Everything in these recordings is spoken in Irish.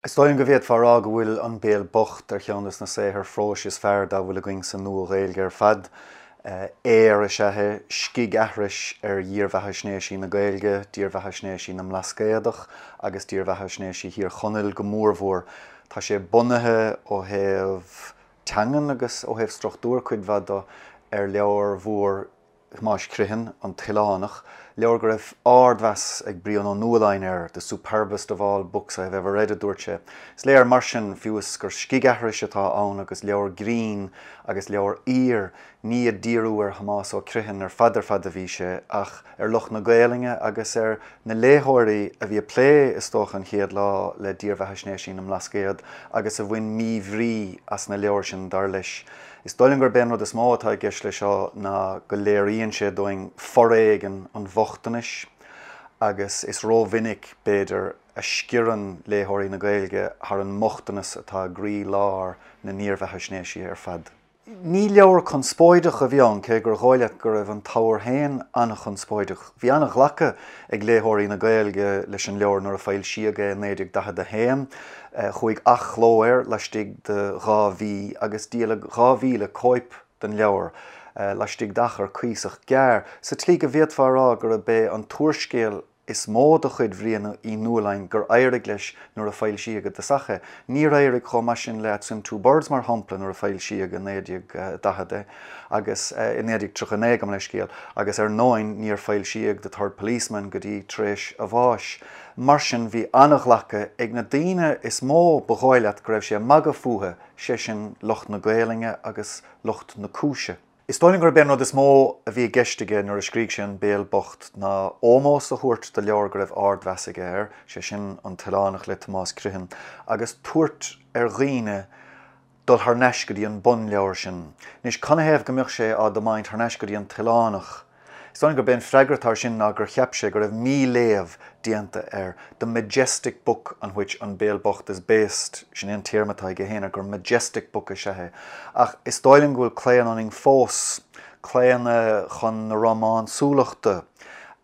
Is dóigh liom go bhféadfá a rá go bhfuil An Béal Bocht ar cheann de na saothair phróis is fearr dá bhfuil againn sa Nua-Ghaeilge ar fad. Aoir is ea é, scigaithris ar dhírbheathaisnéisí na Gaeilge, dírbheathaisnéisí na mBlascaodach agus dírbheathaisnéisí Thír Chonaill go mórmhór. Tá sé bunaithe ó thaobh teangan agus ó thaobh struchtúir cuid mhaith de ar leabhar mhór Thomáis Criomhthain, An tOileánach, leabhar go raibh ardmheas ag Brian Ó Nualláin air, 'the superbest of all books I have ever read' a dúirt sé. Is léir mar sin, fiú is gur scigaithris atá ann agus leabhar grinn agus leabhar aoir, ní ag díriú ar Thomás Ó Criomhthain ar fad ar fad a bhí sé, ach ar lucht na Gaelainne agus ar na léitheoirí a bhí ag plé, is dócha, an chéad lá le dírbheathaisnéisí na mBlascaod agus a bhain míbhrí as na leabhair sin, dar leis. Is dóigh liom gurb é an rud is mó atá i gceist leis seo ná go léiríonn sé dúinn foréigean an bhochtanais agus is rómhinic, b'fhéidir, a sciorann léitheoirí na Gaeilge thar an mbochtanas atá i gcroí-lár na ndírbheathaisnéisí ar fad. Ní leabhar conspóideach a bhí ann, cé gur dhóigh leat go raibh an t-abhar féin an-chonspóideach. Bhí an-ghlacadh ag léitheoirí na Gaeilge leis an leabhar nuair a foilsíodh é i 1941. Chuaigh athchló air laistigh de 2 mhí agus díoladh 2,000 cóip den leabhar laistigh d'achar cuíosach gearr, sa tslí go bhféadfá a rá gurb é an t-úrscéal is mó de chuid Bhriain Uí Nualláin gur éirigh leis nuair a foilsíodh i dtosach é. Níor éirigh chomh maith sin le At Swim Two Birds, mar shampla, nuair a foilsíodh i 1940 é, agus i 1939, gabh mo leithscéal, agus ar ndóigh níor foilsíodh The Third Policeman go dtí tar éis a bháis. Mar sin, bhí an-ghlacadh ag na daoine is mó ba dhóigh leat go raibh sé ag magadh fúthu, sé sin lucht na Gaelainne agus lucht na cúise. Is dóigh liom gurb é an rud is mó a bhí i gceist aige nuair a scrígh sé An Béal Bocht ná ómós a thabhairt do leabhar go raibh ardmheas aige air, sé sin An tOileánach le Tomás Criomhthain, agus tabhairt ar dhaoine dul thar n-ais go dtí an bunleabhar sin. Anois, canathaobh go mbeadh sé á dtiomáint thar n-ais go dtí An tOileánach? Is dóigh liom gurb é an freagra atá air sin ná gur cheap sé go raibh míléamh déanta air, the majestic book on which An Béal Bocht is based, sin é an téarma atá aige féin air, gur majestic book is ea é. Ach is dóigh liom go bhfuil claonadh ionainn fós, claonadh chun na rómánsúlachta,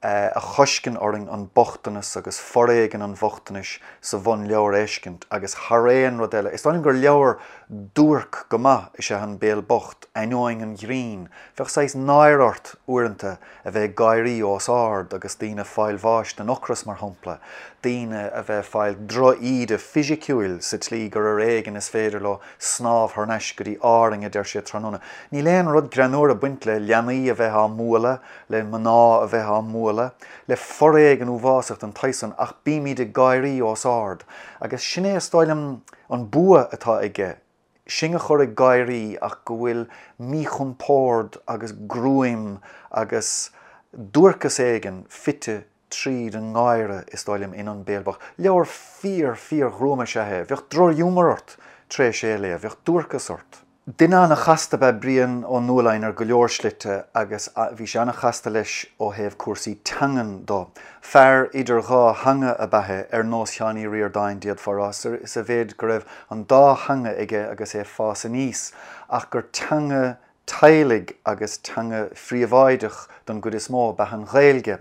a choisceann orainn an bochtanas agus foréigean an bhochtanais sa bhunleabhar a fheiscint agus thar aon rud eile, is dóigh liom gur leabhar duairc go maith is ea An Béal Bocht, ainneoin an ghrinn. Bheadh saghas náire ort uaireanta a bheith ag gáirí os ard agus daoine ag fáil bháis den ocras, mar shampla, daoine a bheith ag fáil droch-íde fisiciúil sa tslí gur ar éigean is féidir leo snámh thar n-ais go dtí Árainn, a deir siad tráthnóna. Níl aon rud greannmhar ag baint le leanaí a bheith á mbualadh, le mná a bheith á mbualadh, le foréigean uafásach den tsaghas san, ach bímid ag gáirí os ard. Agus sin é, is dóigh liom, an bua atá aige. sinn a chur ag gáirí ach go bhfuil míchompord agus gruaim agus duairceas éigin fite tríd an ngáire, is dóigh liom, in An Béal Bocht. Leabhar fíor, fíor-ghruama is ea é. Bheadh drochghiúmar ort tar éis é a léamh, bheadh duairceas ort. Duine an-chasta ab ea Brian Ó Nualláin ar go leor slite agus bhí sé an-chasta leis ó thaobh cúrsaí teangan do. Fear idir dhá theanga ab ea é, ar nós Sheáin Uí Ríordáin, d'fhéadfá a rá, sa mhéid go raibh an dá theanga aige agus é ag fás aníos, ach gur teanga teaghlaigh agus teanga phríobháideach don gcuid is mó ab ea an Ghaeilge.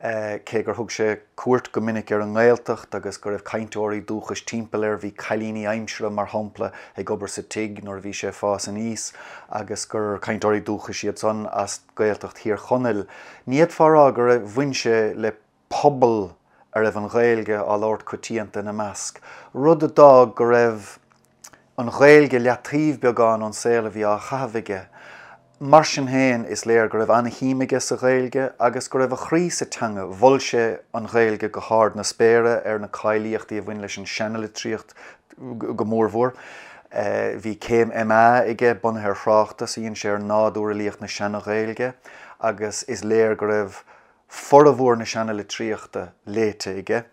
Cé gur thug sé cuairt go minic ar an nGaeltacht agus go raibh cainteoirí dúchais timpeall air, bhí cailíní aimsire, mar shampla, ag obair sa tigh nuair a bhí sé ag fás aníos agus gur cainteoirí dúchais iad san as Gaeltacht Thír Chonaill. Ní fhéadfá a rá gur bhain sé le pobal a raibh an Ghaeilge á labhairt coitianta ina measc, rud a d'fhág go raibh an Ghaeilge leataobh beagán ón saol a bhí á chaitheamh aige. Mar sin féin, is léir go raibh an-shuim aige sa Ghaeilge agus go raibh a chroí sa teanga. Mhol sé an Ghaeilge go hard na spéire ar na cáilíochtaí a bhain leis an seanalitríocht go mórmhór. Bhí céim MA aige bunaithe ar thráchtas a dhein sé ar nádúr fhilíocht na Seana-Ghaeilge agus is léir go raibh formhór na seanalitríochta léite aige.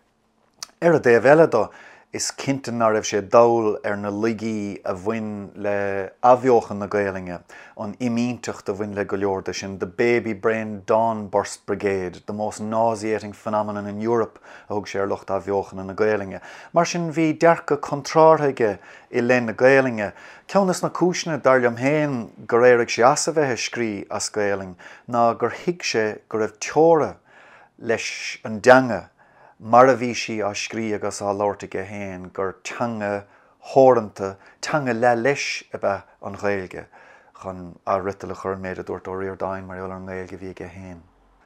Ar an dtaobh eile do, is cinnte ná raibh sé dall ar na laigí a bhain le athbheochan na Gaelainne, an fhimínteacht a bhain le go leor de sin, the baby-brained dawn-burst brigade, the most nauseating phenomenon in Europe a thug sé ar lucht athbheochana na Gaelainne. Mar sin, bhí dearcadh contrártha aige i leith na Gaelainne. Ceann des na cúiseanna, dar liom féin, gur éirigh sé as a bheith ag scrí as Gaelainn ná gur thuig sé go raibh teora leis an dteanga. mar a bhí sí á scrí agus á labhairt aige féin, gur teanga theoranta, teanga leath leis ab ea an Ghaeilge, chun athfhriotal a chur ar an méid a dúirt Ó Ríordáin mar gheall ar an nGaeilge a bhí aige féin.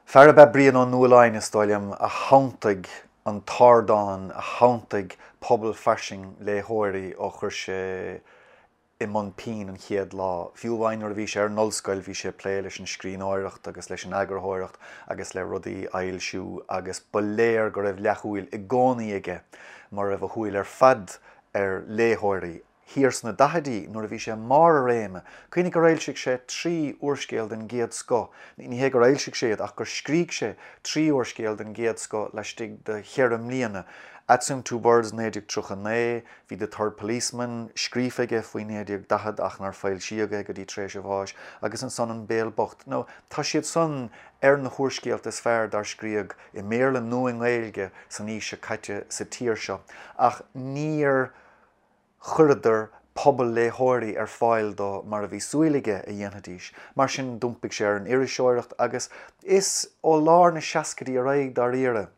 Fear ab ea Brian Ó Nualláin, is dóigh liom, a shantaigh an t-ardán, a shantaigh pobal fairsing léitheoirí ó chuir sé i mbun pinn an chéad lá. Fiú amháin nuair a bhí sé ar an ollscoil bhí sé ag plé leis an scríbhneoireacht agus leis an eagarthóireacht agus le rudaí a fhoilsiú agus ba léir go raibh leathshúil i gcónaí aige, mura raibh a shúil ar fad, ar léitheoirí. Thiar sna daichidí nuair a bhí sé i mbarr a réime, cuimhnigh gur fhoilsigh sé 3 úrscéal den gcéad scoth, ní hé gur fhoilsigh sé iad ach gur scrígh sé 3 úrscéal den gcéad scoth laistigh de cheithre mbliana, Atsume Two Birds 1939, Bhí The Third Policeman scríofa aige faoi 1940 ach nár foilsíodh é go dtí tar éis a bháis, agus ansan An Béal Bocht. Now, tá siad san ar na húrscéalta is fearr dár scríodh i mBéarla nó i nGaeilge san aois seo caite sa tír seo, ach níor chuireadar pobal léitheoirí ar fáil dó mar a bhí súil aige a dhéanfaidís. Mar sin, d'iompaigh sé ar an iriseoireacht agus is ó lár na seascaidí ar aghaidh, dáiríre,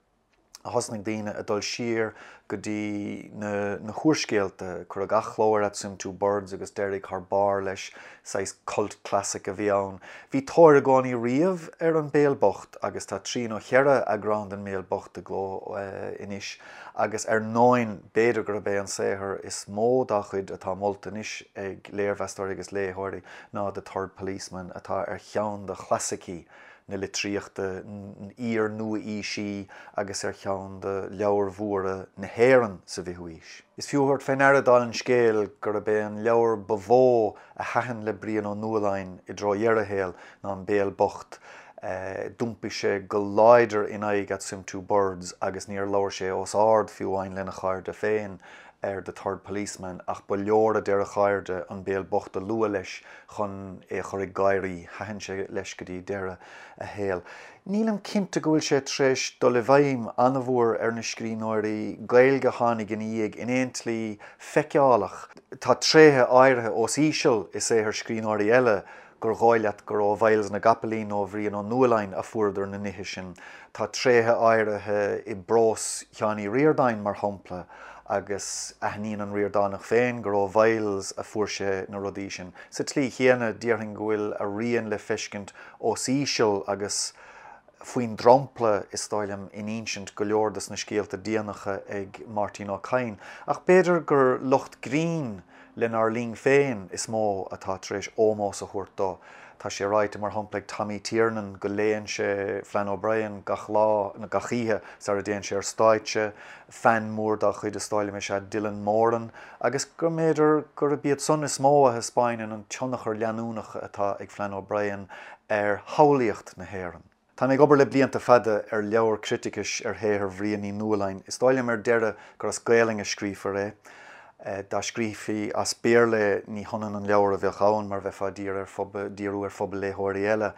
a thosnaigh daoine ag dul siar go dtí na húrscéalta. Cuireadh athchló ar At Swim Two Birds agus d'éirigh thar barr leis, saghas cult classic a bhí ann. Bhí tóir i gcónaí riamh ar An Béal Bocht agus tá trí nó cheithre eagrán den mBéal Bocht i gcló anois agus ar ndóin b'fhéidir gurb é an saothar is mó dá chuid atá molta anois ag léirmheastóirí agus léitheoirí ná The Third Policeman atá ar cheann de chlasaicí na litríochta iar-nua-aoisí agus ar cheann de leabhair mhóra na hÉireann sa bhfichiú haois. Is fiú a thabhairt fé ndeara, dála an scéil, gurb é an leabhar ba mhó a thaitin le Brian Ó Nualláin i dtreo dheireadh a shaoil ná An Béal Bocht. D'iompaigh sé go láidir in aghaidh At Swim Two Birds agus níor labhair sé os ard fiú amháin lena chairde féin ar The Third Policeman ach ba leor, a deir a chairde, An Béal Bocht a lua leis chun é a chur ag gáirí. Thaitin sé leis go dtí deireadh a shaoil. Nílim cinnte go bhfuil sé tar éis dul i bhfeidhm an-mhór ar na scríbhneoirí Gaeilge a tháinig ina dhiaidh in aon tslí feiceálach. Tá tréithe áirithe os íseal i saothar scríbhneoirí eile gur dhóigh leat gur ó Mhyles na gCapaillín nó ó Bhrian Ó Nualláin a fuaireadar na nithe sin. Tá tréithe áirithe i bprós Sheáin Uí Ríordáin, mar shampla, agus aithníonn an Ríordánach féin gur ó Mhyles a fuair sé na rudaí sin. Sa tslí chéanna, déarfainn go bhfuil a rian le feiscint os íseal agus faoin dromchla, is dóigh liom, in insint go leor dos na scéalta déanacha ag Máirtín Ó Cadhain. Ach b'fhéidir gur lucht grinn lenár linn féin is mó atá tar éis ómós a thabhairt dó. Tá sé ráite, mar shampla, ag Tommy Tiernan go léann sé Flann O'Brien gach lá, nó gach oíche, sara dtéann sé ar stáitse. Fan mór dá chuid, is dóigh liom, is ea Dylan Moran, agus go mb'fhéidir gurb iad san is mó a thaispeáineann an tionchar leanúnach atá ag Flann O'Brien ar shamhlaíocht na hÉireann. Tá mé ag obair le blianta fada ar leabhar criticis ar shaothar Bhriain Uí Nualláin. Is dóigh liom ar deireadh gur as Gaelainn a scríofar é. Dá scríofaí as Béarla é ní hionann an leabhar a bheadh ann mar bheifeá ag díriú ar phobal léitheoirí eile.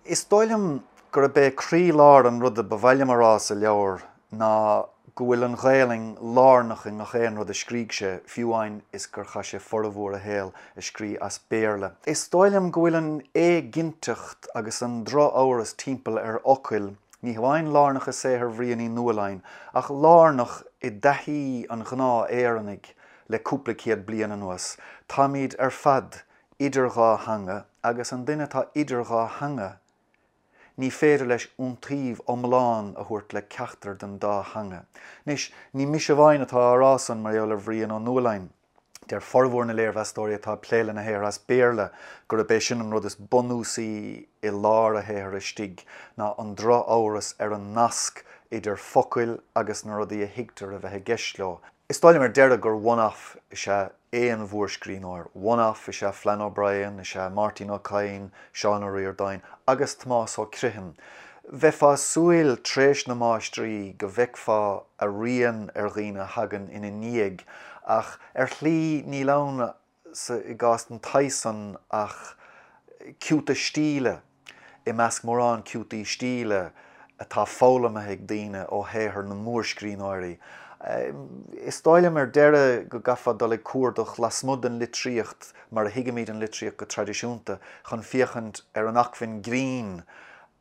Is dóigh liom gurb é croílár an ruda ba mhaith liom a rá sa leabhar ná go bhfuil an Ghaelainn lárnach i ngach aon rud a scrígh sé, fiú amháin is gur chaith sé formhór a shaoil ag scrí as Béarla. Is dóigh liom go bhfuil an éiginnteacht agus an drochamhras timpeall ar fhocail, ní hamháin lárnach i saothar Bhriain Uí Nualláin, ach lárnach i dtaithí an ghnáth-Éireannaigh le cúpla céad bliain anuas. Táimid ar fad idir dhá theanga, agus an duine atá idir dhá theanga, Ní féidir leis iontaoibh iomlán a thabhairt le ceachtar den dá theanga. Anois, ní mise amháin atá á rá san mar gheall ar Bhrian Ó Nualláin. Deir formhór na léirmheastóirí atá ag plé lena shaothar as Béarla gurb é sin an rud is bunúsaí i lár a shaothair istigh, ná an drochamhras ar an nasc idir focail agus na rudaí a thuigtear a bheith i gceist leo. Is dóigh liom ar deireadh gur one-off is ea aon mhórscríbhneoir. One-off is ea Flann O'Brien, is ea Máirtín Ó Cadhain, Seán Ó Ríordáin agus Tomás Ó Criomhthain. Bheifeá ag súil tréis na máistrí go bhfeicfeá a rian ar dhaoine a thagann ina ndiaidh ach ar shlí níl ann sa i gcás den tsaghas san ach ciúta stíle i measc mórán ciútaí stíle atá foghlamtha ag daoine ó shaothar na mórscríbhneoirí. Is dóigh liom ar deireadh go gcaithfeá dul ag cuardach lasmuigh den litríocht mar a thuigimid an litríocht go traidisiúnta chun féachaint ar an acmhainn grinn.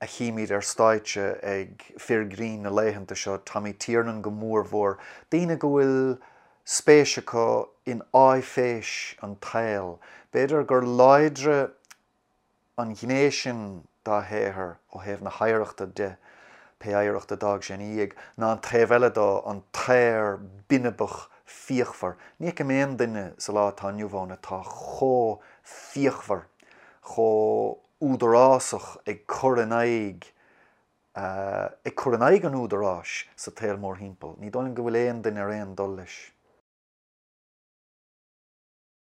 a chímid ar stáitse ag fir grinn na laethanta seo, Tommy Tiernan go mórmhór, daoine go bhfuil spéis acu in áiféis an tsaoil. B'fhéidir gur láidre an ghné sin dá shaothar ó thaobh na hoidhreachta de, pé oidhreacht a d'fhág sé ina dhiaidh, ná an taobh eile dó, an t-aoir binibeach fíochmhar. Ní fheicim aon duine sa lá atá inniu ann atá chomh fíochmhar, chomh údarásach ag cur in aghaidh ag cur in aghaidh an údaráis sa tsaol mórthimpeall. Ní dóigh liom go bhfuil aon duine ar aon dul leis.